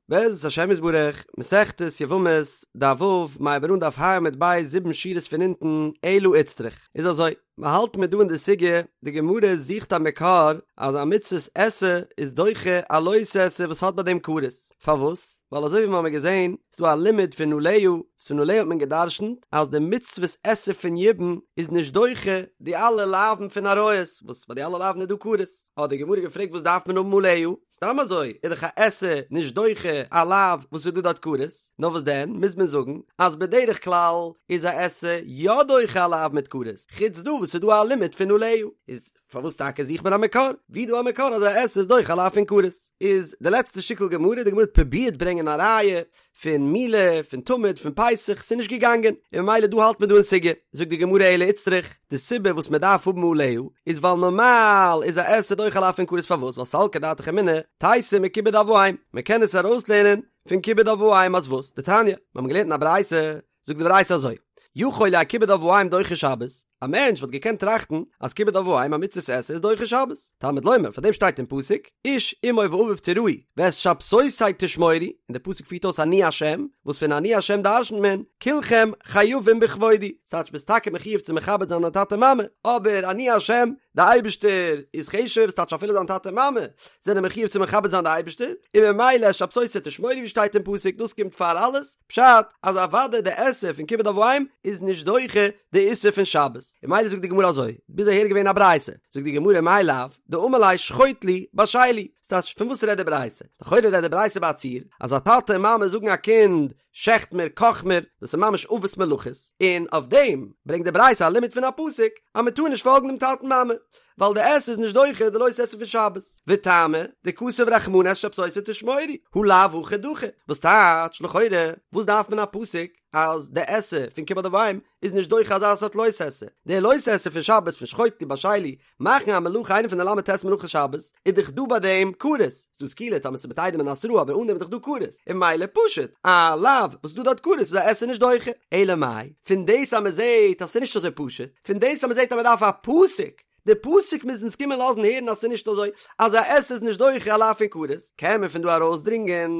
בעזרת השם יתברך, מסכת יבמות, דף ו', מ'הייבט אן דף ה' עמוד ב', זיבן שורות פון אונטן, אלא איצטריך. איז אזוי, מ'האלט מיר דא אין די סוגיא, די גמרא זוכט א מקור אז א מצות עשה איז דוחה א לא תעשה וואס האט ביי דעם כרת. פארוואס? ווייל אזוי ווי מ'האמיר געזען, איז דא א לימוד פון עליה, וואס פון עליה האט מען גע'דרש'נט אז די מצוות עשה פון יבום איז נישט דוחה די אלע לאווין פון עריות, וואס ביי די אלע לאווין איז דא כרת. האט די גמרא געפרעגט וואס דארף מען האבן עליה? סתם אזוי איז דאך א עשה נישט דוחה א לאו וואס איז דא דארט כרת, נאר וואס דען מוז מען זאגן אז בדרך כלל איז א עשה יא דוחה א לאו מיט כרת, חוץ דא וואס איז דא א לימוד פון עליה, איז פארוואס טאקע זוכט מען א מקור? ווי דא א מקור אז א עשה איז דוחה א לאו פון כרת? איז די לעצטע שטיקל גמרא, די גמרא האט פרובירט ברענגען א ראיה פון מילה, פון תמיד, פון פסח, ס'איז נישט געגאנגען, און ממילא דא האלט מען דא אין סוגיא, זאגט די גמרא אלא איצטריך, די סיבה וואס מען דארף האבן עליה, איז ווייל נארמאל איז א עשה דוחה א לאו פון כרת פארוואס? ווייל סלקא דעתך אמינא, תיתי מכיבוד אב ואם, מען קען עס ארויסלערנען פון כיבוד אב ואם אז וואס? דתניא, מיר האבן געלערנט אין א ברייתא, זאגט די ברייתא אזוי, יכול יהא כיבוד אב ואם דוחה שבת, א מענטש וואלט געקענט טראכטן אז כיבוד אב ואם א מצות עשה איז דוחה שבת, תלמוד לומר, פאר דעם שטייט אין פסוק, איש אמו ואביו תיראו ואת שבתותי תשמורו, און דער פסוק פירט אויס אני השם, וואס פון אני השם דרשנ'ט מען, כולכם חייבים בכבודי, ס'טייטש ביסט טאקע מחיוב צו מכבד זיין דיין טאטע מאמע, אבער אני השם, די אייבערשטער איז חשוב, ס'טייטש אפילו דיין טאטע מאמע זענען מחיוב צו מכבד זיין די אייבערשטער, און ממילא את שבתותי תשמורו ווי שטייט אין פסוק, דאס קומט פאר אלעס, פשט אז אוודאי די עשה פון כיבוד אב ואם איז נישט דוחה די איסור פון שבת, און ממילא זאגט די גמרא אזוי, ביז אהער איז געווען א ברייתא, זאגט די גמרא מאי לאו, דאמר ליה שחוט לי, בשל לי, ס'טייטש פון וואס רעדט די ברייתא? לכאורה רעדט די ברייתא ביי א ציור, אז א טאטע און מאמע זאגן א קינד שעכט מיר, קאך מיר, דאס איז ממש אבות מלאכות, און אויף דעם ברענגט די ברייתא א לימוד פון א פסוק אז מען טאר נישט פאלגן דעם טאטן מאמע, ווייל די עשה איז נישט דוחה די לא תעשה פון שבת. וטעמא, דכתב רחמנא את שבתותי תשמורו, הא לאו הכי דחי, וואס טייטש, לכאורה, וואס דארף מען א פסוק אז די עשה פון כיבוד אב ואם איז נישט דוחה אזא סארט לא תעשה, די לא תעשה פון שבת פון שחוט לי בשל לי, מאכן א מלאכה איינע פון די ל"ט מלאכות שבת, איז דאך דא ביי דעם כרת, ס'דא סקילה טאמער ס'איז מיט עדים און התראה אבער אן דעם איז דאך דא כרת, און ממילא פשוט, א לאו וואס איז דא דארט כרת איז א עשה נישט דוחה, אלא מאי, פון דאס אז מ'זעהט אז ס'איז נישט אזוי פשוט, פון דאס אז מ'זעהט אז מ'דארף א פסוק, די פסוק מוז אונז קומען לאזן הערן אז ס'איז נישט אזוי אז א עשה איז נישט דוחה א לאו פון כרת, קען מען פון דא ארויסדרינגען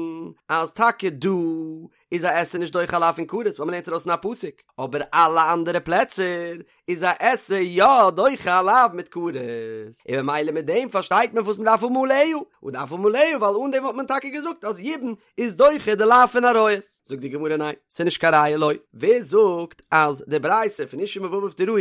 אז טאקע דא איז א עשה נישט דוחה א לאו פון כרת ווייל מ'לערנט ארויס אין א פסוק, אבער אלע אנדערע פלעצער איז א עשה יא דוחה א לאו מיט כרת, און ממילא מיט דעם פארשטייט מען וואס מ'דארף האבן עליה, מ'דארף האבן עליה ווייל אן דעם וואלט מען טאקע געזאגט אז יבום איז דוחה די לאו פון עריות. זאגט די גמרא ניין, ס'איז נישט קיין ראיה לא. ווער זאגט אז די ברייתא פון איש אמו ואביו תיראו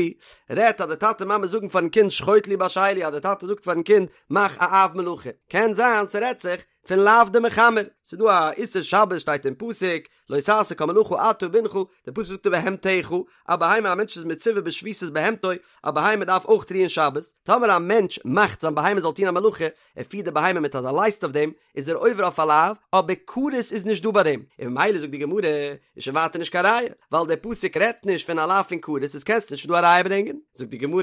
רעדט אז די טאטע מאמע זאגן פארן קינד שחוט לי בשל לי אז די טאטע זאגט פארן קינד מאך א אב מלאכה, קען זיין ס'רעדט זיך פון לאו דמחמר, ס'איז דא א איסור שבת שטייט אין פסוק לא תעשה כל מלאכה אתה ובנך, די פסוק זאגט ובהמתך, א בהמה א מענטש איז מצווה בשביתת בהמתו, א בהמה דארף אויך רוען שבת, טאמער א מענטש מאכט זיין בהמה זאל טון א מלאכה, ער פירט די בהמה מיט אזא לייסט אויף דעם, איז ער עובר אויף א לאו, אבער כרת איז נישט דא ביי דעם, און ממילא זאגט די גמרא, איז שוין ווייטער נישט קיין ראיה, ווייל דער פסוק רעדט נישט פון א לאו פון כרת, איז קענסטו נישט פון דא א ראיה ברענגען. זאגט די גמרא,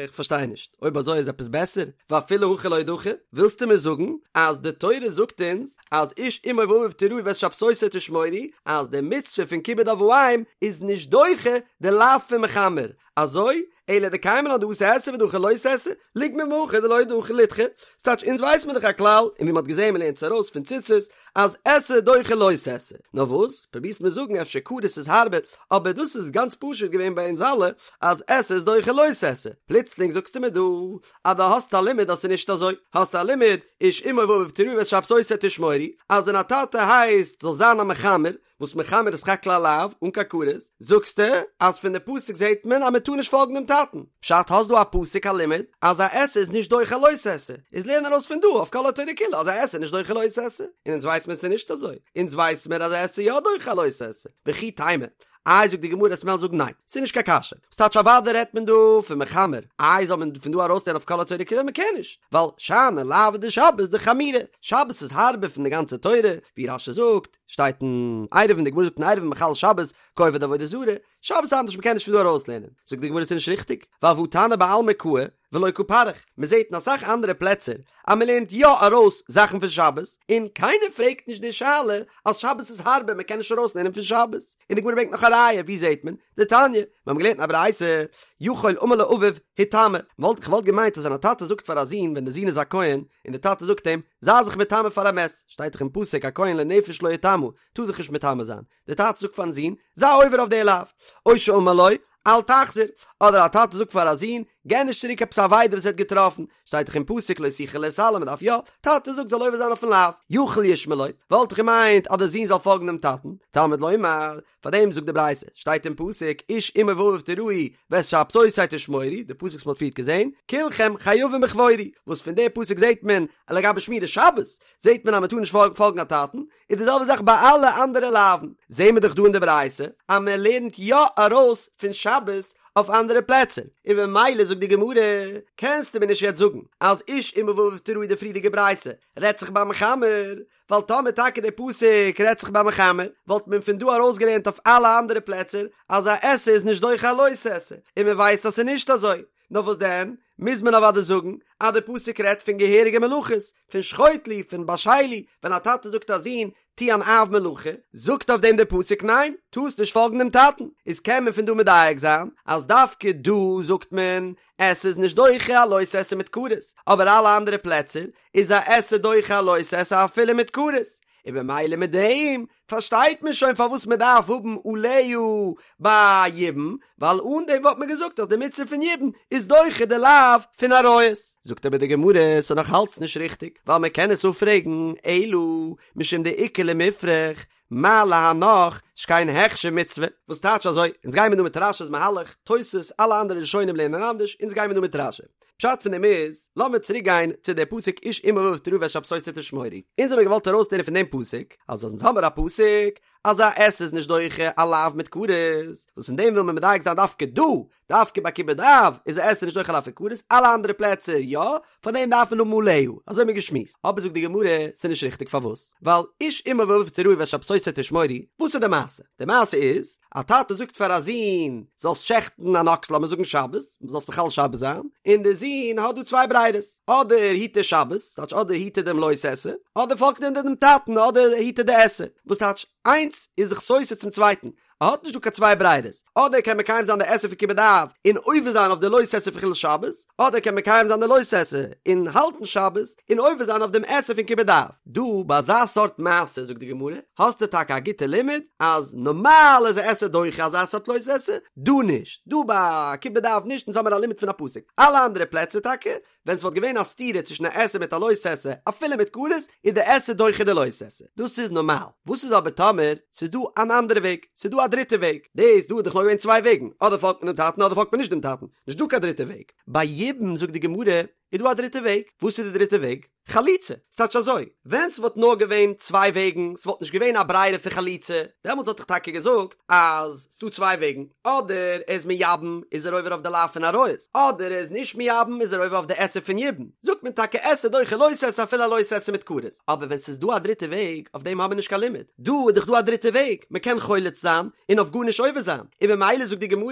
איך פארשטיי נישט, אויב אזוי איז עפעס בעסער, ואפילו הכי לא דחי, ווילסטו מיר זאגן אז די תורה זאגט אונז אז איש אמו ואביו תיראו ואת שבתותי תשמורו, אז די מצוה פון כיבוד אב ואם איז נישט דוחה די לאו פון מחמר, אזוי, אלא דקיימא לן דאתי עשה ודחי לא תעשה, ליגמר מהכא דלא דחי לידחי, ס'טייטש אונז ווייס מיר דאך א כלל, און ווי מ'האט געזען מ'לערנט עס ארויס פון ציצית, אז עשה דוחה לא תעשה. נאר וואס, פרובירסט מיר זאגן אפשר כרת איז הארבער, אבער דאס איז גאנץ פשוט געווען ביי אונז אלע, אז עשה איז דוחה לא תעשה. פלוצלינג זאגסטו מיר דא, אז דו האסט א לימוד אז ס'איז נישט אזוי. האסט א לימוד, איש אמו ואביו תיראו ואת שבתותי תשמורו, אז ווען א טאטע הייסט זאל זיין א מחמר, וואס מחמר איז סך הכל א לאו, אן קיין כרת, זאגסטו אז פון די פסוק זעהט מען אז מען טאר נישט פאלגן דעם טאטן, פשט האסט דא א פסוק א לימוד אז א עשה איז נישט דוחה לא תעשה, איז לערן ארויס פון דא אויף כל התורה כולה אז א עשה איז נישט דוחה לא תעשה, און אונז ווייס מיר ס'איז נישט אזוי, אונז ווייס מיר אז א עשה יא דוחה לא תעשה, וכי תימא, איי זאגט די גמרא וועסט וועלן זאגן ניין, ס'איז נישט קיין קשיא, ס'טייטש אוודאי רעדט מען דא פון מחמר, איי זאל מען פון דא ארויסלערנען אויף כל התורה כולה, מ'קען נישט, ווייל שאני לאוי דשבת דחמירי, שבת איז הארבער פון די גאנצע תורה, ווי רש"י זאגט, שטייט אין עירובין, די גמרא זאגט אין עירובין מחלל שבת כעובד עבודה זרה, שבת איז אנדערש מ'קען נישט פון דא ארויסלערנען, זאגט די גמרא ס'איז נישט ריכטיג, ווייל והא תנא בעלמא קאי. ולא קא פריך, מען זעט אין אסאך אנדערע פלעצער אז מען לערנט יא ארויס זאכן פון שבת, און קיינער פרעגט נישט די שאלה אז שבת איז הארבער מען קען נישט ארויסלערנען פון שבת, און די גמרא ברענגט נאך א ראיה, ווי זעט מען? דתניא, מיר האבן געלערנט אין א ברייתא, יכול אמר לו אביו היטמא, וואלט איך וואלט געמיינט אז ווען א טאטע זאגט פאר א זון ווען די זון איז א כהן, און די טאטע זאגט אים, זיי זיך מטמא פאר א מת, שטייט דאך אין פסוק א כהן לנפש לא יטמא, טאר זיך נישט מטמא זיין, די טאטע זאגט פארן זון, זיי עובר אויף די לאו, או שאמר לו, אל תחזיר, אדער א טאטע זאגט פאר א זון, גיב נישט צוריק עפעס א אבידה וואס ער האט געטראפן, שטייט דאך אין פסוק לא תוכל להתעלם, מען דארף יא, טאטע זאגט זאל עובר זיין אויפן לאו, יכול ישמע לו, וואלט איך געמיינט אז די זון זאל פאלגן דעם טאטן, תלמוד לומר, פאר דעם זאגט די ברייתא, שטייט אין פסוק, איש אמו ואביו תיראו ואת שבתותי תשמורו, די פסוק וואס מען האט פריערט געזען, כולכם חייבים בכבודי, וואס פון די פסוק זעט מען אז לגבי שמירת שבת, זעט מען אז מען טאר נישט פאלגן א טאטן, איז די זעלבע זאך ביי אלע אנדערע לאווין, זעהן מיר דאך דא אין די ברייתא אז מען לערנט יא ארויס פון שבת אויף אנדערע פלעצער, און במילא זאגט די גמרא, קענסטו מיר נישט יעצט זאגן אז איש אמו ואביו תיראו די פריערדיגע ברייתא רעדט זיך ביי מחמר, ווייל טאמער טאקע די פסוק רעדט זיך ביי מחמר, וואלט מען פון דא ארויסגעלערנט אויף אלע אנדערע פלעצער אז א עשה איז נישט דוחה א לא תעשה, און מען ווייסט אז ס'איז נישט אזוי. נאר וואס דען, מוז מען אוודאי זאגן אז די פסוק רעדט פון געהעריגע מלאכות, פון שחוט לי, פון בשל לי, ווען א טאטע זאגט א זון, טו אן אב מלאכה, זאגט אויף דעם דער פסוק ניין, טארסט נישט פאלגן דעם טאטן, איז קען מען פון דא מדייק זיין אז דווקא דא זאגט מען עשה איז נישט דוחה א לא תעשה מיט כרת, אבער אלע אנדערע פלעצער איז א עשה דוחה א לא תעשה אפילו מיט כרת, און במילא מיט דעם פארשטייט מען שוין פארוואס מען דארף האבן עליה ביי יבום, ווייל אן דעם וואלט מען געזאגט אז די מצוה פון יבום איז דוחה די לאו פון עריות. זאגט אבער די גמרא, ס'איז נאך אלץ נישט ריכטיג, ווייל מען קען עס אפפרעגן, אלא משום דאיכא למיפרך, מה להנך שכן הכשר מצוה, וואס טייטש אזוי, אונז גיימער דא מיט רש"י'ס מהלך, תוס', אלע אנדערע ראשונים לערנען אנדערש, אונז גיימער דא מיט רש"י. פשט פון דעם איז, לאמיר צוריק גיין צו דער פסוק איש אמו ואביו תיראו ואת שבתותי תשמורו. אונז האמיר געוואלט ארויסלערנען פון דעם פסוק, אז אונז האמיר א פסוק אז א עשה איז נישט דוחה א לאו מיט כרת, וואס פון דעם וויל מען מדייק זיין דווקא דא, דווקא ביי כיבוד אב איז א עשה נישט דוחה א לאו פון כרת, אלע אנדערע פלעצער יא, פאר דעם דארף מען האבן עליה, אזוי האמיר געשמועסט. אבער זאגט די גמרא, ס'איז נישט ריכטיג פארוואס? ווייל איש אמו ואביו תיראו ואת שבתותי תשמורו, וואס איז די מעשה? די מעשה איז, א טאטע זאגט פאר א זון, זאלסט שעכטן אן אקס לאמיר זאגן שבת, זאלסט מחלל שבת זיין, און דער זון האט דא צוויי ברירות, אדער היט ער שבת, טייטש אדער היט ער דעם לא תעשה, אדער פאלגט ער דעם טאטן, אדער היט ער די עשה, וואס טייטש, איינס איז זיך סותר צום צווייטן, ער האט נישט דא קיין צוויי ברירות, אדער קען מקיים זיין די עשה פון כיבוד אב און עובר זיין אויף די לא תעשה פון חילול שבת, אדער קען מקיים זיין די לא תעשה און האלטן שבת און עובר זיין אויף דעם עשה פון כיבוד אב. דא ביי אזא סארט מעשה זאגט די גמרא, האסטו טאקע א גוטע לימוד אז נארמאל איז א עשה דוחה אזא סארט לא תעשה, דא נישט, דא ביי כיבוד אב נישט, אונז האמיר א לימוד פון א פסוק, אלע אנדערע פלעצער טאקע ווען ס'וואלט געווען א סתירה צווישן א עשה מיט א לא תעשה, אפילו מיט כרת, איז די עשה דוחה די לא תעשה. דאס איז נארמאל. וואס איז אבער טאמער ס'איז דא אן אנדערע וועג? ס'איז דא א דריטע וועג. דאס דא איז דאך נאר געווען צוויי וועגן, אדער פאלגט מען דעם טאטן אדער פאלגט מען נישט דעם טאטן. נישט דא קיין דריטע וועג. ביי יבום זאגט די גמרא, איז דא א דריטע וועג. וואס איז די דריטע וועג? חליצה. ס'טייטש אזוי, ווען ס'וואלט נאר געווען צוויי וועגן, ס'וואלט נישט געווען א ברירה פון חליצה, דעמאלטס וואלט איך טאקע געזאגט אז ס'דא צוויי וועגן, אדער ער איז מייבם איז ער עובר אויף די לאו פון עריות, אדער ער איז נישט מייבם איז ער עובר אויף די עשה פון יבום, זאגט מען טאקע עשה דוחה לא תעשה אפילו א לא תעשה מיט כרת, אבער ווען ס'איז דא א דריטע וועג, אויף דעם האבן מיר נישט קיין לימוד, דא איז דאך דא א דריטע וועג, מ'קען חולץ זיין און אויף גארנישט עובר זיין, און ממילא זאגט די גמרא,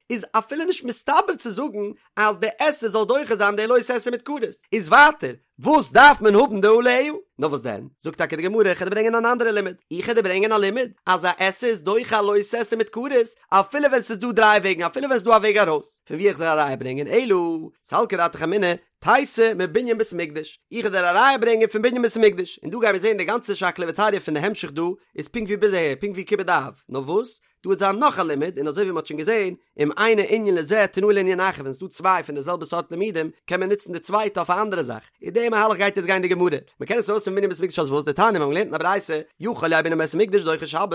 איז אפילו נישט מסתבר צו זאגן אז די עשה זאל דוחה זיין די לא תעשה מיט כרת, איז ווייטער וואס דארף מען האבן די עליה? נאר וואס דען? זאגט טאקע די גמרא, איך וועל דיר ברענגען אן אנדערע לימוד, איך וועל דיר ברענגען א לימוד אז א עשה איז דוחה א לא תעשה מיט כרת, אפילו ווען ס'איז דא דריי וועגן, אפילו ווען ס'איז דא א וועג ארויס, פון וואו איך וועל א ראיה ברענגען, אלא סלקא דעתך אמינא, תיתי מבנין בית המקדש, איך וועל דיר א ראיה ברענגען פון בנין בית המקדש, און דא גיימיר זען די גאנצע שקלא וטריא פון די המשך דא איז פונקט ווי ביז אהער, פונקט ווי כיבוד אב, נאר וואס? דא וועט זיין נאך א לימוד, און אזוי ווי מ'האט שוין געזען, אם אינו ענין לזה תנהו לענין אחר, ווען ס'דא צוויי פון די זעלבע סארט לימודים, קען מען נוצן די צווייטע אויף א אנדערע זאך. אין די מהלך גייט יעצט גיין די גמרא. מ'קען עס ארויס פון בנין בית המקדש אז וואס? דתניא, מיר האבן געלערנט אין א ברייתא, יכול יהא בנין בית המקדש דוחה שבת,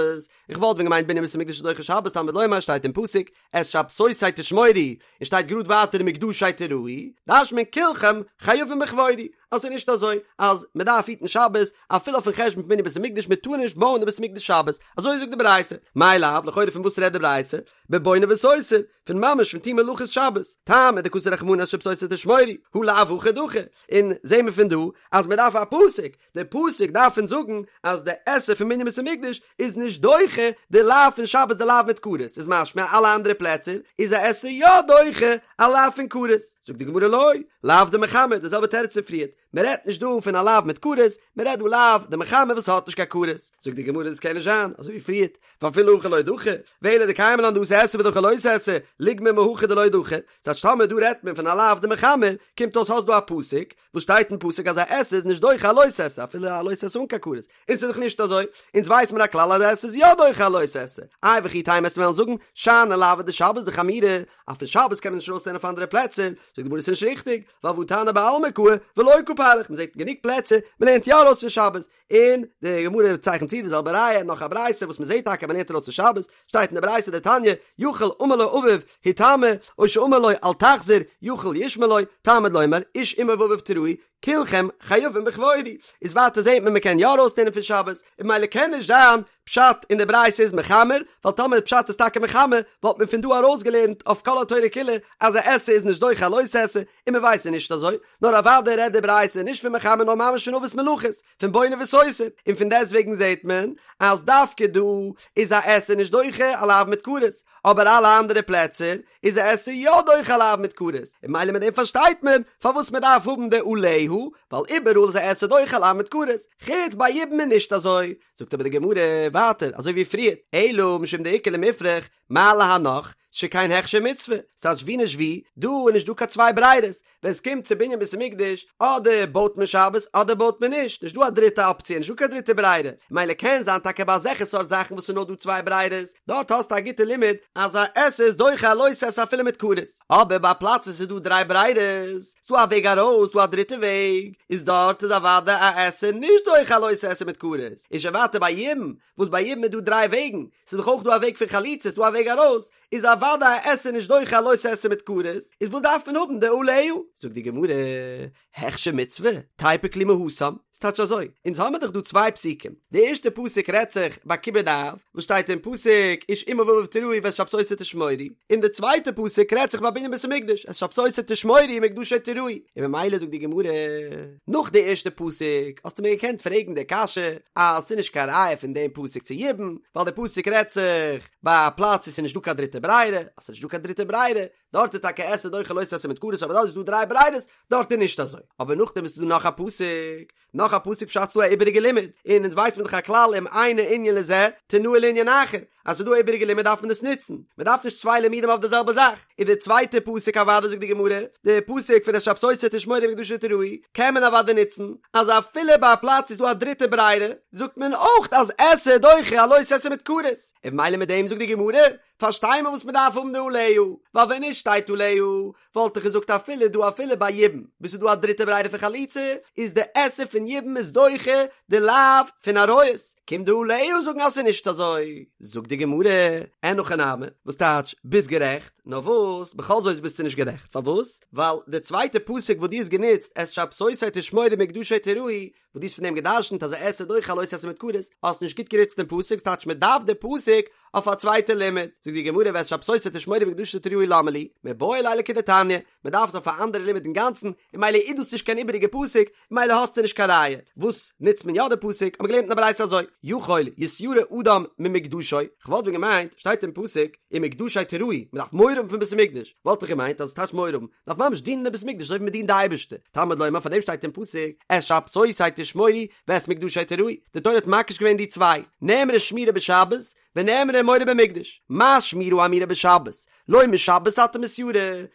איך וואלט ווען געמיינט בנין בית המקדש איז דוחה שבת, תלמוד לומר שטייט אין פסוק, את שבתותי תשמורו, און שטייט גראד ווייטער ומקדשי תיראו, דרש'נט מען כולכם. כולכם חייבים בכבודי, אז ס'איז נישט אזוי אז מען דארף היטן שבת אפילו אויפן חשבון פון בנין בית המקדש, מען טאר נישט בויען די בית המקדש שבת, אזוי זאגט די ברייתא, מאי לאו, לכאורה פון וואס רעדט די ברייתא? בבונה וסותר, פון ממש פון טון מלאכות שבת, טעמא דכתב רחמנא את שבתותי תשמורו, הא לאו הכי דחי, און זעהן מיר פון דא אז מען דארף א פסוק, די פסוק דארף אונז זאגן אז די עשה פון בנין בית המקדש איז נישט דוחה די לאו פון שבת די לאו מיט כרת, איז משמע אלע אנדערע פלעצער איז א עשה יא דוחה א לאו פון כרת, זאגט די גמרא לא, לאו דמחמר, די זעלבע תירוץ פון פריערט, מען רעדט נישט דא פון א לאו מיט כרת, מען רעדט דא לאו דמחמר וואס האט נישט קיין כרת, זאגט די גמרא דאס קען נישט זיין, אזוי ווי פריערט, ואפילו הכי לא דחי, ואלא דקיימא לן דאתי עשה ודחי לא תעשה, ליגמר מהכא דלא דחי, ס'טייטש טאמער דא רעדט מען פון א לאו דמחמר, קומט אויס האסט דא א פסוק, וואס שטייט אין פסוק אז א עשה איז נישט דוחה א לא תעשה אפילו א לא תעשה אן קיין כרת, און ס'איז דאך נישט אזוי, אונז ווייס מיר א כלל אז א עשה איז יא דוחה א לא תעשה, איי וכי תימא וועסטו וועלן זאגן שאני לאוי דשבת דחמירי, אז פון שבת קען מען נישט ארויסלערנען אויף אנדערע פלעצער, זאגט די גמרא ס'איז נישט ריכטיג, ווייל והא תנא בעלמא קאי ולא קא פריך, מ'זעט אין גענוג פלעצער מ'לערנט יא ארויס פון שבת, און די גמרא צייכנט צו די זעלבע ראיה נאך א ברייתא וואס מ'זעט טאקע מ'לערנט ארויס פון שבת, שטייט אין די ברייתא דתניא, יכול אמר לו אביו היטמא, או שאמר לו אל תחזיר, יכול ישמע לו, תלמוד לומר, איש אמו ואביו תיראו, כולכם חייבים בכבודי. איז ווייטער זעט מען מ'קען יא ארויסלערנען פון שבת, און ממילא קען נישט זיין פשט אין די ברייתא איז מחמר, ווייל טאמער פשט איז טאקע מחמר, וואלט מען פון דא ארויסגעלערנט אויף כל התורה כולה אז א עשה איז נישט דוחה א לא תעשה, און מ'ווייסט ס'איז נישט אזוי, נאר אוודאי רעדט די ברייתא נישט פון מחמר נאר ממש פון אבות מלאכות, פון בונה וסותר, און פון דעסטוועגן זעט מען אז דווקא דא איז א עשה נישט דוחה א לאו מיט כרת, אבער אלע אנדערע פלעצער איז א עשה יא דוחה א לאו מיט כרת, און ממילא מיט דעם פארשטייט מען פארוואס מען דארף האבן די עליה, ווייל איבעראל איז א עשה דוחה א לאו מיט כרת, חוץ ביי יבום איז נישט אזוי, זאגט אבער די גמרא ווייטער אזוי ווי פריער, אלא משום דאיכא למיפרך, מה להנך, שכן הכשר מצוה, ס'טייטש ווי נישט ווי, דא איז נישט דא קיין צוויי ברירות, ווען ס'קומט צו בנין בית המקדש, אדער בויט מען שבת אדער בויט מען נישט, נישט דא א דריטע אפציע, נישט דא קיין דריטע ברירה, מילא קען זיין טאקע ביי אזעלכע סארט זאכן וואס ס'איז נאר דא צוויי ברירות, דארט האסטו א גוטע לימוד אז א עשה איז דוחה א לא תעשה אפילו מיט כרת, אבער ביי א פלאץ וואס ס'איז דא דריי ברירות, ס'דא א וועג ארויס, ס'דא א דריטע וועג, איז דארט איז אוודאי א עשה נישט דוחה א לא תעשה מיט כרת, איז שוין ווייטער ביי יבום, וואס ביי יבום איז דא דריי וועגן, ס'איז דאך אויך דא א וועג פון חליצה, ס'איז דא א וועג ארויס, איז אוודאי א עשה נישט דוחה א לא תעשה מיט כרת, איז וואס דארף מען האבן די עליה? זאגט די גמרא, הכשר מצוה, תיפוק ליה מהתם, ס'טייטש אזוי, אונז האמיר דאך דא צוויי פסוקים, די ערשטע פסוק רעדט זיך ביי כיבוד אב, וואס שטייט אין פסוק איש אמו ואביו תיראו ואת שבתותי תשמורו, און די צווייטע פסוק רעדט זיך ביי בנין בית המקדש, את שבתותי תשמורו ומקדשי תיראו, און ממילא זאגט די גמרא, נאך די ערשטע פסוק האסטו מיר געקענט פרעגן די קשיא אז ס'איז נישט קיין ראיה פון דעם פסוק צו יבום, ווייל די פסוק רעדט זיך ביי א פלאץ וואו ס'איז נישט דא קיין דריטע ברירה, אז ס'איז נישט דא קיין דריטע ברירה, דארט איז טאקע עשה דוחה לא תעשה מיט כרת אבער דארט איז דא דריי ברירות, דארט איז נישט אזוי. אבער נאכדעם איז דא נאך א פסוק, נאך א פסוק פשט ס'דא א איבעריגע לימוד, און אונז ווייסט מען דאך א כלל אם אינו ענין לזה תנהו לענין אחר, אז ס'איז דא א איבעריגע לימוד דארף מען עס נוצן, מען דארף נישט צוויי לימודים אויף די זעלבע זאך, איז די צווייטע פסוק אוודאי זאגט די גמרא, די פסוק פון את שבתותי תשמורו ומקדשי תיראו, קען מען אוודאי נוצן, אז אפילו ביי א פלאץ איז דא א דריטע ברירה, זאגט מען אויך אז עשה דוחה א לא תעשה מיט כרת, און ממילא מיט דעם זאגט די גמרא, פארשטיי מיר וואס מען דארף האבן די עליה, ווייל ווען נישט שטייט עליה, וואלט איך געזאגט אפילו דא אפילו ביי יבום, וואו ס'איז דא א דריטע ברירה פון חליצה, איז די עשה פון יבום איז דוחה די לאו פון עריות, קומט די עליה זאגן אז ס'איז נישט אזוי. זאגט די גמרא, אין הכי נמי, וואס טייטש ביסט גערעכט, נאר וואס, בכל זאת ביסטו נישט גערעכט, פארוואס? ווייל די צווייטע פסוק וואס דו האסט גענוצט, את שבתותי תשמורו ומקדשי תיראו, וואס דו האסט פון דעם גע'דרש'נט אז א עשה דוחה א לא תעשה מיט כרת, האסט נישט גוט גענוצט דעם פסוק, ס'טייטש מען דארף די פסוק אויף א צווייטע לימוד. זאגט די גמרא ואת שבתותי תשמורו ומקדשי תיראו למה לי, מיבעי ליה לכדתניא, מען דארף עס אויף א אנדערע לימוד אינגאנצן, און ממילא איז דאס נישט קיין איבעריגע פסוק, און ממילא האסטו נישט קיין ראיה. וואס נוצט מען יא די פסוק? האט מען געלערנט אין א ברייתא אזוי, יכול יתיירא אדם ממקדשו, כ'וואלט ווען געמיינט, שטייט אין פסוק, ומקדשי תיראו, מען דארף מורא האבן פון בית המקדש, וואלט איך געמיינט אז עס טייטש מורא האבן, דארף ממש דינען אין בית המקדש אזוי ווי מען דינט די אייבערשטער, תלמוד לומר פאר דעם שטייט אין פסוק, את שבתותי תשמורו ואת מקדשי תיראו, די תורה האט מקיש געווען די צוויי, נאמרה שמירה בשבת ונאמרה מורא במקדש, מה שמירה האמורה בשבת, לא משבת אתה מתיירא,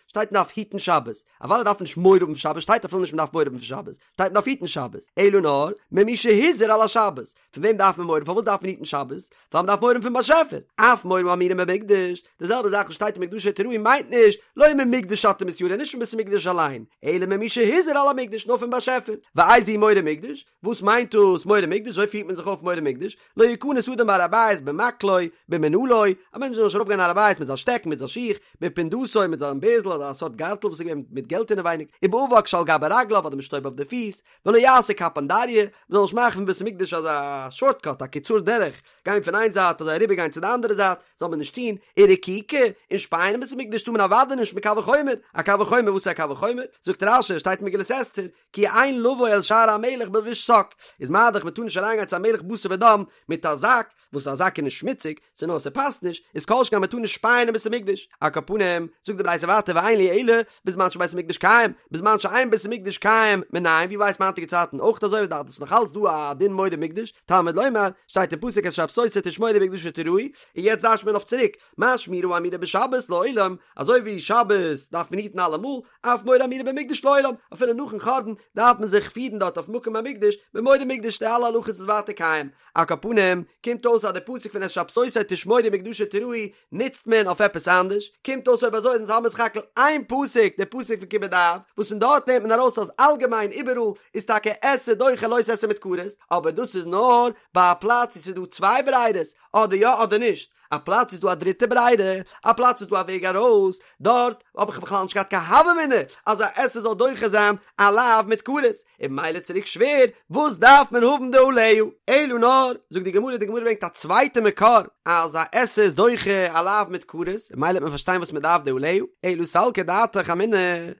שטייט מען דארף היטן שבת, אוודאי דארף מען נישט מורא האבן פון שבת, שטייט אפילו נישט מען דארף מורא האבן פון שבת, שטייט מען דארף היטן שבת, אלא נאר ממי שהזהיר על השבת, פון וועם דארף מען מורא האבן? פארוואס דארף מען היטן שבת? ווייל מען דארף מורא האבן פון באשעפער. אף מורא האמורה במקדש, די זעלבע זאך וואס שטייט ומקדשי תיראו מיינט נישט לא ממקדש אתה מתיירא, נישט פון בית המקדש אליין, אלא ממי שהזהיר על המקדש, נאר פון באשעפער. ואיזהו מורא מקדש? וואס מיינט דאס מורא מקדש? אזוי פירט מען זיך אויף מורא מקדש, לא יכנס אדם בהר הבית במקלו. במקלו, במנעלו, א מענטש זאל נישט ארויפגיין הר הבית מיט זיין שטעקן, מיט זיין שיך, בפונדתו, מיט זיין בערזל אדער א סארט גארטל וואס איז געווען מיט געלט אינעווייניג, ובאבק שעל גבי רגליו אדער מיט שטויב אויף די פיס, ולא יעשה קפנדריא, מ'זאל נישט מאכן פון בית המקדש אזא שארטקאט, א קיצור דרך, גיין פון איין זייט אזוי אריבער גיין צו די אנדערע זייט, זאל מען נישט טון, ורקיקה, און שפייען אין בית המקדש טאר מען אוודאי נישט מקל וחומר, א קל וחומר וואס איז א קל וחומר? זאגט רש"י, שטייט אין מגילת אסתר, כי אין לבוא אל שער המלך בלבוש שק, איז מה דאך מ'טאר נישט אריינגיין צו א מלך בשר ודם מיט א זאק, וואס א זאק איז נישט שמוציג, ס'איז נאר ס'פאסט נישט, איז כל שכן מ'טאר נישט שפייען אין בית המקדש. על כל פנים, זאגט די ברייתא ווייטער ואין לי אלא, בזמן שבית המקדש קיים, בזמן שאין בית המקדש קיים, מנין, ווי ווייסט מען היינטיגע צייטן אויך אזוי וואס דארט איז נאך אלץ דא א דין מורא מקדש, תלמוד לומר, שטייט אין פסוק את שבתותי תשמורו ובמקדשי תיראו, און יעצט דרש'ט מען אויף צוריק, מה שמירה האמורה בשבת לעולם, אזוי ווי שבת דארף מען היטן אלעמאל, אף מורא האמורה במקדש לעולם, אפילו נאכן חורבן דארף מען זיך פירן דארט אויף מקום המקדש, במורא מקדש די אלע הלכות איז ווייטער קיים. על כל פנים, קומט אויס אז די פסוק פון את שבתותי תשמורו ובמקדשי תיראו נוצט מען אויף עפעס אנדערש, קומט אויס אויב אזוי אונז האבן סך הכל איין פסוק, די פסוק פון כיבוד אב, וואס פון דארט נעמט מען ארויס אז אלגעמיין איבעראל איז טאקע עשה דוחה לא תעשה מיט כרת, אבער דאס איז נאר ביי א פלאץ וואו ס'איז דא צוויי ברירות, אדער יא אדער נישט, א פלאץ איז דא א דריטע ברירה, א פלאץ איז דא א וועג ארויס, דארט האב איך בכלל נישט געהאט קיין הוה אמינא אז א עשה זאל דוחה זיין א לאו מיט כרת, און ממילא צוריק שווער, וואס דארף מען האבן די עליה? אלא נאר, זאגט די גמרא, די גמרא ברענגט א צווייטע מקור אז א עשה איז דוחה א לאו מיט כרת, און ממילא וועט מען פארשטיין וואס מען דארף די עליה, אלא סלקא דעתך אמינא,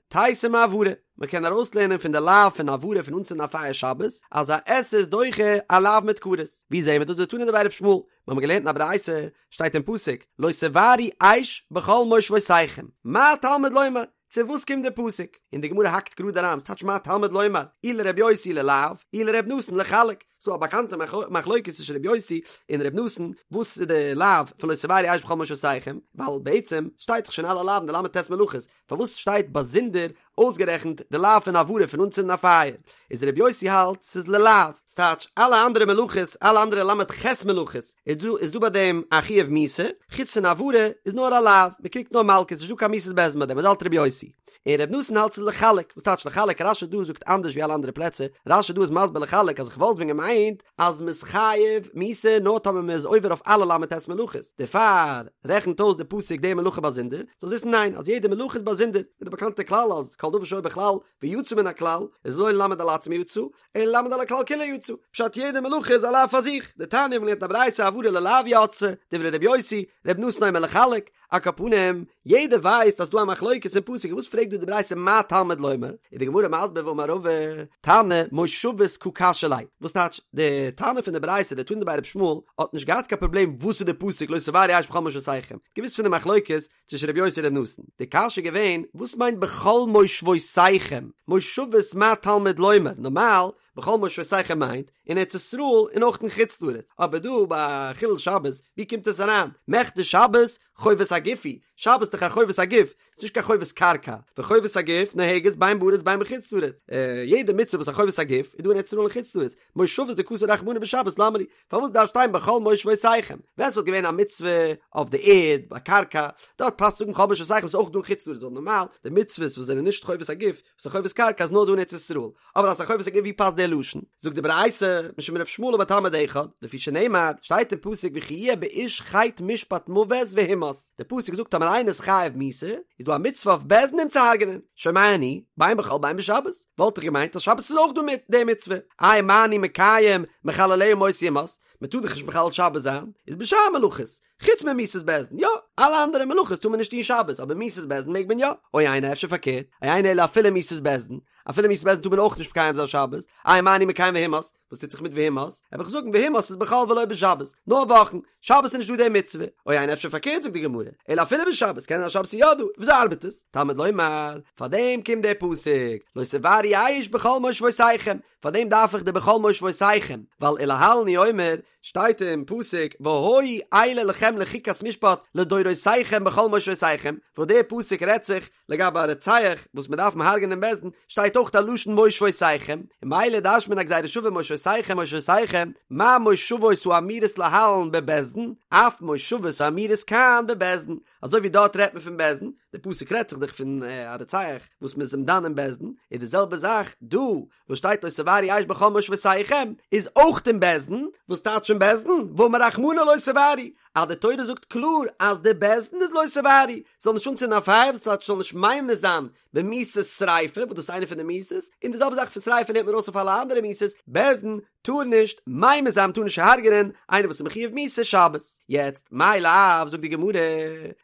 תיתי מהבערה, מען קען ארויסלערנען פון די לאו פון הבערה פון אנצינדן א פייער שבת, אז א עשה איז דוחה א לאו מיט כרת. ווי זעהן מיר דאס? דתנא דבי ר' ישמעאל, מיר האבן געלערנט אין א ברייתא, שטייט אין פסוק, לא תבערו אש בכל מושבותיכם, מה תלמוד לומר? צו וואס קומט די פסוק? און די גמרא האקט גראד אריין, וואס טייטש מה תלמוד לומר? אי לר' יוסי ללאו, אי לר' נתן לחלק. ס'דא א באקאנטע מחלוקת צווישן ר' יוסי און ר' נתן, וואס איז די לאו פון לא תבערו אש בכל מושבותיכם, ווייל בעצם שטייט דאך שוין אלע לאווין די ל"ט מלאכות, פארוואס שטייט באזונדער אויסגערעכנט די לאו פון הבערה פון אנצינדן א פייער? איז ר' יוסי האלט ס'איז ללאו, ס'טייטש אלע אנדערע מלאכות, אלע אנדערע ל"ח מלאכות, איז דא איז דא ביי דעם א חיוב מיתה, חוץ פון הבערה איז נאר א לאו, מ'קריגט נאר מלקות, נישטא קיין מיתת בית דין ביי דעם, אזוי האלט ר' יוסי. און ר' נתן האלט ס'איז לחלק, וואס טייטש לחלק? רש"י דא זאגט אנדערש ווי אלע אנדערע פלעצער, רש"י דא איז מסביר לחלק אז איך וואלט ווען געמיינט אז מ'איז חייב מיתה נאר טאמער מ'איז עובר אויף אלע ל"ט מלאכות, דערפאר רעכנט אויס די פסוק די מלאכה באזונדער, זאלסט וויסן ניין אז יעדע מלאכה איז באזונדער, מיט די באקאנטע כלל אז כל דבר שהיה בכלל ויצא מן הכלל איז לא ללמד על עצמו יצא, אלא ללמד על הכלל כולו יצא, פשט יעדע מלאכה איז א לאו פאר זיך, דתניא מ'האט געלערנט א ברייתא הבערה ללאו יצתה, דברי ר' יוסי, ר' נתן אומר לחלק, על כל פנים, יעדער ווייסט אז ס'דא א מחלוקת אין פסוק, וואס פרעגט דא די ברייתא מה תלמוד לומר? איז די גמרא מסביר ואמר רבא, תנא מושבות קא קשיא ליה, וואס טייטש, די תנא פון די ברייתא, די תנא דבי ר' ישמעאל, האט נישט געהאט קיין פראבלעם וואס איז די פסוק לא תבערו אש בכל מושבותיכם, געוואוסט פון די מחלוקת צווישן ר' יוסי און ר' נתן, די קשיא איז געווען, וואס מיינט בכל מושבותיכם? מושבות מה תלמוד לומר, נארמאל, בכל מושבותיכם מיינט, אין ארץ ישראל און אויך אין חוץ לארץ, אבער דא ביי חילול שבת, ווי קומט עס אריין? מכדי שבת חובת הגוף היא, שבת איז דאך א חובת הגוף, ס'איז נישט קיין חובת קרקע, וחובת הגוף נוהגת בין בארץ בין בחוץ לארץ, יעדע מצוה וואס איז א חובת הגוף איז דא אין ארץ ישראל און חוץ לארץ, מושבות דכתב רחמנא בשבת למה לי, פארוואס דארף שטיין בכל מושבותיכם? ווען ס'וואלט געווען א מצוה אויף די ערד, ביי קרקע, דארט פאסט צו זאגן בכל מושבותיכם ס'איז אויך דא אין חוץ לארץ, ווייל נארמאל די מצוות וואס זענען נישט חובת הגוף, וואס איז חובת קרקע איז נאר דא אין ארץ ישראל, אבער אז ס'איז א חובת הגוף ווי פאסט דער לשון? זאגט די ברייתא, משום ר' ישמעאל אמר תלמיד אחד, לפי שנאמר, שטייט אין פסוק וכי יהיה באיש חטא משפט מוות והומת, די פסוק זאגט טאמער איינער איז חייב מיתה, איז דא א מצוה אויף בית דין אים צו הרג'נען, שומע אני, בין בחול בין בשבת, וואלט איך געמיינט אז שבת איז אויך דא מיט די מצוה, איי מה אני מקיים מחלליה מות יומת, מען טאר דאך נישט מחלל שבת זיין, איז בשאר מלאכות, חוץ ממיתת בית דין, יא, אלע אנדערע מלאכות טאר מען נישט טון שבת, אבער מיתת בית דין מעג מען יא, או אינו אפשר פארקערט, או אינו אלא אפילו מיתת בית דין, אפילו מיתת בית דין טאר מען אויך נישט מקיים זיין שבת, איי מה אני מקיים והומת, וואס טוט זיך מיט והומת? וועל איך זאגן והומת איז בחול ולא בשבת, נאר וואכן, שבת איז נישט דא די מצוה, או אינו אפשר פארקערט זאגט די גמרא, אלא אפילו בשבת, קען זיין אז שבת איז יא דא, וויאזוי ארבעט עס? תלמוד לומר, פאר דעם קומט דער פסוק, לא תבערו אש בכל מושבותיכם, פאר דעם דארף איך די בכל מושבותיכם, ווייל ולהלן הוא אומר, שטייט אין פסוק והיו אלה לכם לחוקת משפט לדורותיכם בכל מושבותיכם, וואס דער פסוק רעדט זיך לגבי א רוצח וואס מען דארף אים הרג'ענען אין בית דין, שטייט אויך א לשון מושבותיכם, און ממילא דרש'נט מען א גזירה שווה מושבותיכם מושבותיכם, מה מושבות האמורות להלן בבית דין, אף מושבות האמורות כאן בבית דין, אזוי ווי דארט רעדט מען פון בית דין, די פסוק רעדט זיך דאך פון א רוצח וואס מען איז אים דן אין בית דין, איז די זעלבע זאך דא וואס שטייט לא תבערו אש בכל מושבותיכם איז אויך אין בית דין, וואס טייטש אין בית דין? ואמר רחמנא לא תבערו, אז די תורה זאגט קלאר אז די בית דין איז לא תבערו, זאל נישט אנצינדן א פייער, וואס טייטש זאל נישט ממית זיין במיתת שריפה, וואס דאס איז איינע פון די מיתות, און די זעלבע זאך פון שריפה לערנט מען ארויס אויף אלע אנדערע מיתות, בית דין טאר נישט ממית זיין מ'טאר נישט הרג'נען איינער וואס איז מחויב מיתה שבת. יעצט, מאי לאו, זאגט די גמרא,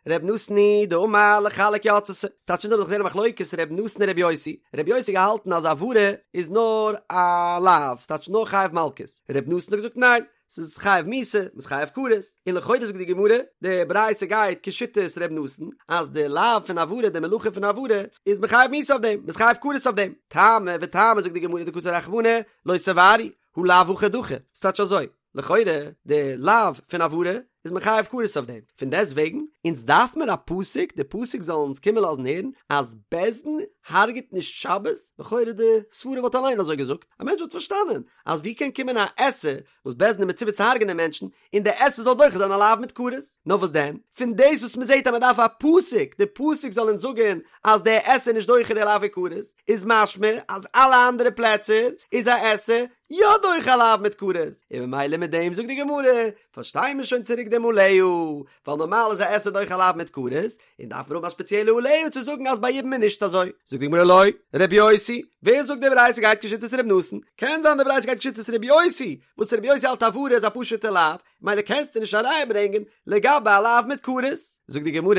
ר' נתן היא דאמר לחלק יצתה, ס'טייטש אונז האבן דאך געזען א מחלוקת ר' נתן און ר' יוסי, ר' יוסי האט געהאלטן אז הבערה איז נאר א לאו, ס'טייטש נאר חייב מלקות, ר' נתן האט געזאגט ניין, ס'איז חייב מיתה, מ'איז חייב כרת, און לכאורה זאגט די גמרא, די ברייתא גייט כשיטת ר' נתן, אז די לאו פון הבערה, די מלאכה פון הבערה, איז מען חייב מיתה אויף דעם, מ'איז חייב כרת אויף דעם. טעמא וטעמא זאגט די גמרא דכתב רחמנא, לא תבערו, הא לאו הכי דחי, ס'טייטש אזוי, לכאורה די לאו פון הבערה איז מען חייב כרת אויף דעם, פון דעסט וועגן אונז דארף מיר א פסוק, די פסוק זאל אונז קומען לאזן הערן אז בית דין הרג'ט נישט שבת, לכאורה די סברה וואלט אליין אזוי געזאגט, א מענטש וואלט פארשטאנען אז ווי קען קומען א עשה וואס בית דין איז מצווה צו הרג'נען מענטשן, און די עשה זאל דוחה זיין א לאו מיט כרת. נאר וואס דען? פון דאס וואס מען זעט אז מען דארף א פסוק, די פסוק זאל אונז זאגן אז די עשה איז נישט דוחה די לאו כרת, איז משמע אז אלע אנדערע פלעצער איז א עשה יא דוחה א לאו מיט כרת, און ממילא מיט דעם זאגט די גמרא, פארשטיי מיר שוין צוריק דעם עליה, ווייל נארמאל איז א עשה דוחה א לאו מיט כרת, און דארף מען האבן א ספעציעלע עליה צו זאגן אז ביי יבום איז נישט אזוי. זאגט די גמרא לא, רבי יוסי, ווער זאגט די ברייתא גייט כשיטת רבי נתן? קען זיין די ברייתא גייט כשיטת רבי יוסי, וואס רבי יוסי האלט הבערה איז א פשוטע לאו, ממילא קענסטו נישט א ראיה ברענגען לגבי א לאו מיט כרת. זאגט די גמרא,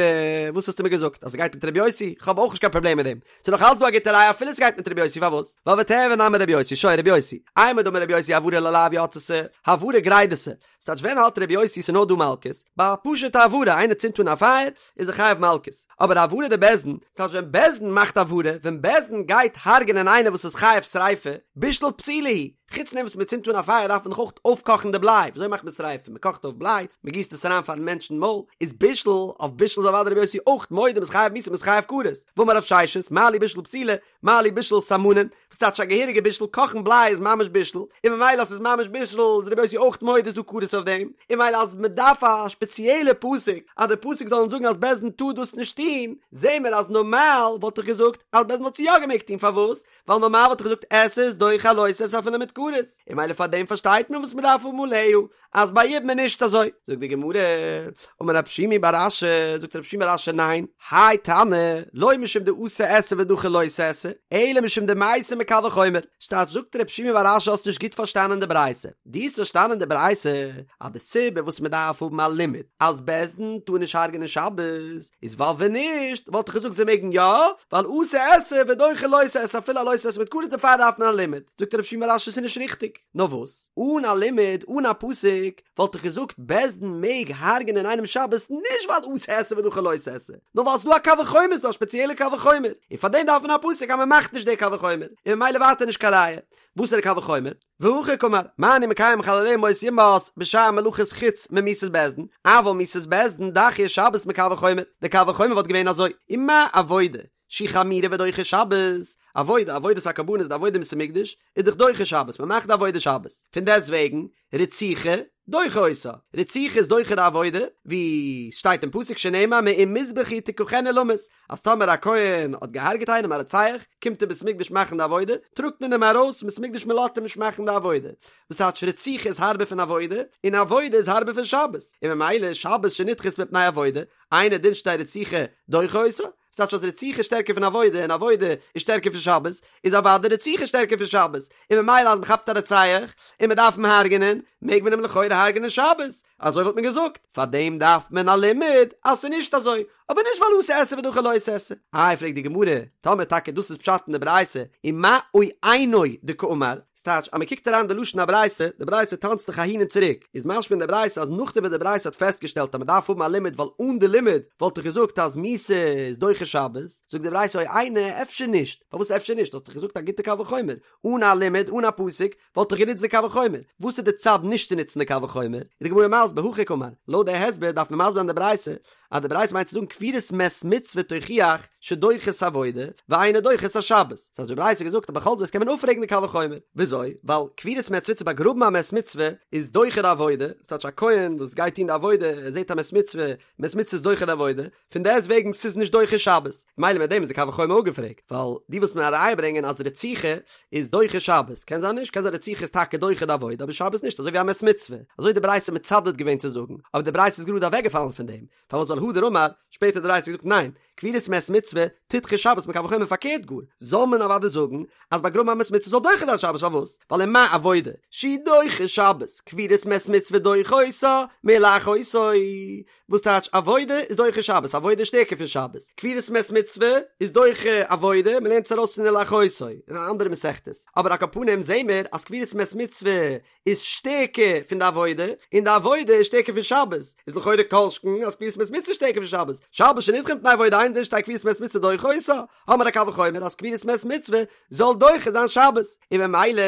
וואס האסטו מיר געזאגט אז ס'גייט מיט רבי יוסי? כ'האב אויך נישט קיין פראבלעם מיט דעם, ס'איז נאך אלץ דא א גוטע ראיה אפילו ס'גייט מיט רבי יוסי, פארוואס? ווייל ותיהוי נמי רבי יוסי, שוין רבי יוסי, אימר דאמר רבי יוסי הבערה ללאו יצתה, הבערה גרידתא, ס'טייטש ווען האלט רבי יוסי ס'נאר דא מלקות? ביי א פשוטע הבערה איינער צינדט אן א פייער איז ער חייב מלקות, אבער הבערה דבית דין, ס'טייטש ווען בית דין מאכט הבערה, ווען בית דין גייט הרג'נען איינער וואס איז חייב שריפה, בישול פתילה הוא, חוץ דעם וואס מ'צינדט אן א פייער דארף מען דאך אויך אויפקאכן די בליי, וויאזוי מאכט מען שריפה? מ'קאכט אויף בליי, מ'גיסט עס אריין פארן מענטש אין מויל, איז בישול, אויף בישול איז אוודאי רבי יוסי אויך מודה מ'איז חייב מיתה מ'איז חייב כרת, ואמר רב ששת, מה לי בישול פתילה, מה לי בישול סמנין, וואס טייטש א געהעריגע בישול, קאכן בליי איז ממש בישול, און ממילא אז ס'איז ממש בישול איז רבי יוסי אויך מודה איז דא כרת אויף דעם, און ממילא אז מ'דארף א שפעציעלע פסוק אז די פסוק זאל אונז זאגן אז בית דין טאר דאס נישט טון, זעהן מיר אז נארמאל וואלט איך געזאגט אז בית דין וואלט עס יא געמעגט טון, פארוואס? ווייל נארמאל וואלט איך געזאגט עשה איז דוחה א לא תעשה אפילו מיט כרת, און ממילא פאר דעם פארשטייט מען וואס מ'דארף האבן עליה אז ביי יבום איז נישט אזוי, זאגט די גמרא, אמר רב שימי בר אשי, זאגט רב שימי בר אשי ניין, האי תנא, לא משום דאתי עשה ודחי לא תעשה, אלא משום דמייתי מקל וחומר, ס'טייטש זאגט רב שימי בר אשי האסט נישט גוט פארשטאנען די ברייתא, דו האסט פארשטאנען די ברייתא אז די סיבה וואס מען דארף האבן א לימוד אז בית דין טאר נישט הרג'נען שבת איז ווייל ווען נישט וואלט איך געזאגט זיי מעגן יא, ווייל אתי עשה ודחי לא תעשה אפילו א לא תעשה מיט כרת דערפאר דארף מען א לימוד, זאגט רב שימי בר אשי ס'איז נישט ריכטיג, נאר וואס? אן א לימוד, אן א פסוק, וואלט איך געזאגט בית דין מעג הרג'נען איינעם שבת נישט ווייל אתי עשה ודחי לא תעשה, נאר ווייל ס'דא א קל וחומר, ס'דא א ספעציעלע קל וחומר, און פאר דעם דארף מען א פסוק אז מ'מאכט נישט די קל וחומר, און ממילא ווייטער נישט קיין ראיה. וואסערע קל וחומר? והכי קאמר, מה אני מקיים מחלליה מות יומת בשאר מלאכות חוץ ממיתת בית דין, אבל מיתת בית דין דחיא שבת מקל וחומר, די קל וחומר וואלט געווען אזוי, ומה עבודה שהיא חמורה ודוחה שבת, עבודה, עבודת הקרבנות, די עבודה אין בית המקדש, איז דאך דוחה שבת, מען מאכט די עבודה שבת, פון דעסט וועגן, רציחה, דוחה אותה, רציחה איז דוחה די עבודה, ווי שטייט אין פסוק שנאמר מעם מזבחי תקחנו למות, אז טאמער א כהן האט געהארגעט איינעם א רוצח, קומט אין בית המקדש מאכן די עבודה, טראגט מען אים ארויס פון בית המקדש מען לאזט אים נישט מאכן די עבודה, וואס טייטש רציחה איז הארבער פון עבודה, און עבודה איז הארבער פון שבת, און ממילא שבת שנדחית מפני עבודה, אינו דין שתהא רציחה דוחה אותה, ס'טייטש אז רציחה איז שטערקער פון עבודה און עבודה איז שטערקער פון שבת, איז אוודאי רציחה שטערקער פון שבת, און ממילא אז מ'כאפט א רוצח און מ'דארף אים הרג'נען, מעג מען אים לכאורה הרג'נען שבת, אזוי וואלט מען געזאגט, פארדעם דארף מען א לימוד אז ס'איז נישט אזוי, אבער נישט ווייל אתי עשה ודחי לא תעשה. איי פרעגט די גמרא, טאמער טאקע דאס איז פשט אין די ברייתא, ומאי או אינו דקאמר, ס'טייטש אז מ'קוקט אריין די לשון הברייתא, די ברייתא טאנצט דאך אהין און צוריק, איז משמע אין די ברייתא אז נאכדעם וואס די ברייתא האט פעסטגעשטעלט אז מ'דארף האבן א לימוד ווייל אן די לימוד וואלט איך געזאגט אז מיתה איז דוחה שבת, זאגט די ברייתא או אינו אפשר נישט, פארוואס אפשר נישט? האסט דאך געזאגט א גוטע קל וחומר, אן א לימוד אן א פסוק וואלט איך גענוצט די קל וחומר, וואס איז די צד נישט צו נוצן די קל וחומר? איז די גמרא מסביר הכי קאמר, לויט די הסבר דארף מען מסביר זיין די ברייתא אז די ברייתא מיינט צו זאגן קבורת מת מצוה תוכיח שדוחה את העבודה ואינה דוחה את השבת, ס'האט די ברייתא געזאגט אז בכל זאת קען מען אפפרעגן די קל וחומר, וויאזוי? ווייל קבורת מת מצוה צו באגראבן א מת מצוה איז דוחה די עבודה, ס'טייטש א כהן וואס גייט טון די עבודה ער זעט א מת מצוה, מת מצוה איז דוחה די עבודה, פון דעסט וועגן ס'איז נישט דוחה שבת, מילא מיט דעם איז די קל וחומר אפגעפרעגט, ווייל דו ווילסט מיר א ראיה ברענגען אז רציחה איז דוחה שבת, קען זיין נישט, קען זיין רציחה איז טאקע דוחה די עבודה אבער שבת נישט, אזוי ווי א מת מצוה, אזוי איז די ברייתא מצדד. מייסד געווען צו זאגן, אבער די ברייתא איז גראד אוועקגעפאלן פון דעם, פארוואס ווייל הדר אמר, שפעטער האט די ברייתא געזאגט ניין, קבורת מת מצוה תדחה שבת מקל וחומר פארקערט גאר, זאל מען אוודאי זאגן אז באגראבן א מת מצוה זאל דוחה זיין שבת פארוואס? ווייל ומה עבודה שהיא דוחה שבת קבורת מת מצוה דוחה אותה מלאחותו וואס טייטש עבודה איז דוחה שבת עבודה איז שטערקער פון שבת קבורת מת מצוה איז דוחה עבודה מען לערנט עס ארויס פון ולאחותו אין א אנדערע מסכת אבער על כל פנים זעהן מיר אז קבורת מת מצוה איז שטערקער פון די עבודה, און די עבודה איז שטערקער פון שבת, איז לכאורה כל שכן אז קבורת מת מצוה איז שטערקער פון שבת, שבת שנדחה מפני עבודה אינו דין שתהא קבורת מת מצוה דוחה אותה, האמיר א קל וחומר אז קבורת מת מצוה זאל דוחה זיין שבת, און ממילא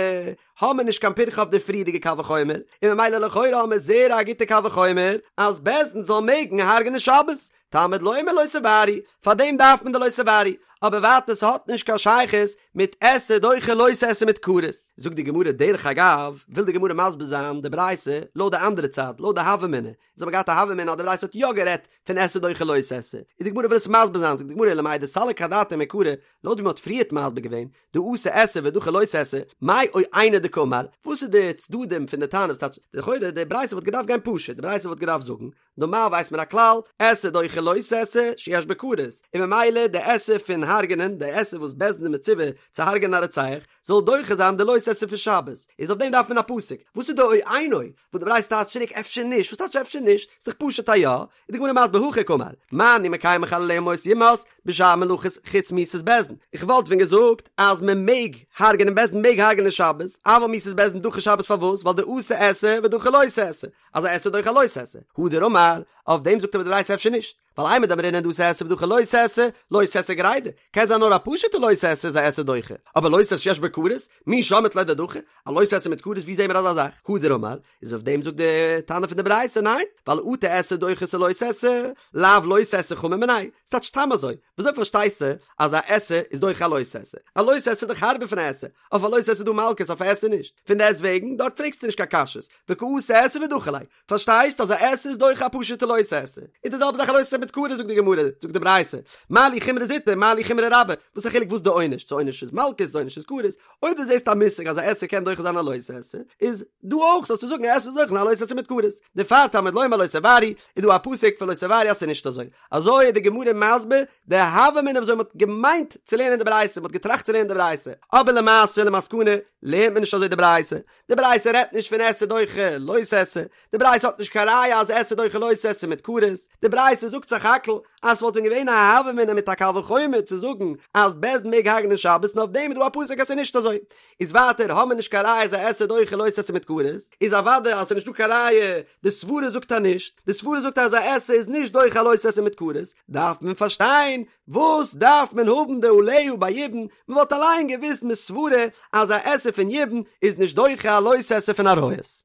האמיר נישט קיין פירכא אויף די פריערדיגע קל וחומר, און ממילא לכאורה האמיר זעהר א גוטע קל וחומר אז בית דין זאל מעגן הרג'נען שבת, תלמוד לומר לא תבערו, פאר דעם דארף מען די לא תבערו, אבער ווייטער ס'האט נישט קיין שייכות מיט עשה דוחה לא תעשה מיט כרת. זאגט די גמרא דרך אגב, וויל די גמרא מסביר זיין די ברייתא לויט די אנדערע צד, לויט די הוה אמינא, אונז האבן געהאט א הוה אמינא אז די ברייתא האט יא גערעדט פון עשה דוחה לא תעשה, און די גמרא וויל עס מסביר זיין, זאגט די גמרא למאי דסליק אדעתיה מעיקרא, לויט ווי מ'האט פריערט מסביר געווען, דאתי עשה ודחי לא תעשה, מאי או אינו דקאמר, וואס איז די צדדים פון די תנא, וואס טייטש, לכאורה די ברייתא וואלט געדארפט גיין פשוט, די ברייתא וואלט געדארפט זאגן, נארמאל ווייסט מען א כלל, עשה דוחה לא תעשה שיש בו כרת, און ממילא די עשה פון הרג'נען, די עשה וואס בית דין איז מצווה צו הרג'נען א רוצח, זאל דוחה זיין די לא תעשה פון שבת, איז אויף דעם דארף מען א פסוק, וואס איז די או אינו, וואס די ברייתא טייטשט צוריק אפשר נישט, וואס טייטש אפשר נישט, ס'איז דאך פשוט א יא, איז די גמרא מסביר הכי קאמר, מה אני מקיים מחלליה מות יומת, בשאר מלאכות חוץ מיתת בית דין, איך וואלט ווען געזאגט אז מען מעג הרג'נען בית דין מעג הרג'נען שבת, אבל מיתת בית דין דחי שבת פארוואס ווייל דאתי עשה ודחי לא תעשה, אז א עשה דוחה לא תעשה, הדר אמר, אויף דעם זאגט אבער די ברייתא אפשר נישט, ווייל אימר דאמרינן דאתי עשה ודחי לא תעשה, לא תעשה גרידא, קען זיין נאר א פשוטע לא תעשה איז א עשה דוחה, אבער לא תעשה שיש בו כרת, מי שמעת ליה דדחי, א לא תעשה מיט כרת ווי זעהן מיר אזא זאך? הדר אמר, איז אויף דעם זאגט די תנא פון די ברייתא ניין, ווייל אטו עשה דוחה את הלא תעשה, לאו לא תעשה חמור מיניה, ס'טייטש סתם אזוי, וויאזוי פארשטייסטו אז א עשה איז דוחה א לא תעשה? א לא תעשה איז דאך הארבער פון א עשה, אויף א לא תעשה איז דא מלקות אויף א עשה נישט, פון דעסט וועגן דארט פרעגסטו נישט קיין קשיות, וקאתי עשה ודחי ליה, פארשטייסט אז א עשה איז דוחה א פשוטע לא תעשה, איז די זעלבע זאך א לא תעשה מיט כרת זאגט די גמרא, זאגט די ברייתא, מה לי חומרא זוטא מה לי חומרא רבה, וואס א חילוק וואס די עונש, צו עונש איז מלקות צו עונש איז כרת, אויב דו זעסט א מושג אז א עשה קען דוחה זיין א לא תעשה, איז דא אויך זאלסטו זאגן א עשה איז דוחה א לא תעשה מיט כרת, דערפאר תלמוד לומר לא תבערו, איז דא א פסוק פון לא תבערו אז ס'איז נישט אזוי, אזוי איז די גמרא מסביר די הוה אמינא וויאזוי מ'האט געמיינט צו לערנען די ברייתא, מ'האט געטראכט צו לערנען די ברייתא, אבער למעשה למסקנא לערנט מען נישט אזוי די ברייתא, די ברייתא רעדט נישט פון עשה דוחה לא תעשה, די ברייתא האט נישט קיין ראיה אז עשה דוחה לא תעשה מיט כרת, די ברייתא זאגט סך הכל אז ס'וואלט ווען געווען א הוה אמינא מיט א קל וחומר צו זאגן אז בית דין מעג הרג'נען שבת און אויף דעם איז דא א פסוק אז ס'איז נישט אזוי. איז ווייטער האמיר נישט קיין ראיה אז א עשה דוחה לא תעשה מיט כרת, איז אוודאי אז ס'איז נישטא קיין ראיה, די סברה זאגט אז נישט, די סברה זאגט אז א עשה איז נישט דוחה א לא תעשה מיט כרת, דארף מען פארשטיין וואס דארף מען האבן די עליה ביי יבום, מען וואלט אליין געוואוסט מסברה אז א עשה פון יבום איז נישט דוחה א לא תעשה פון עריות.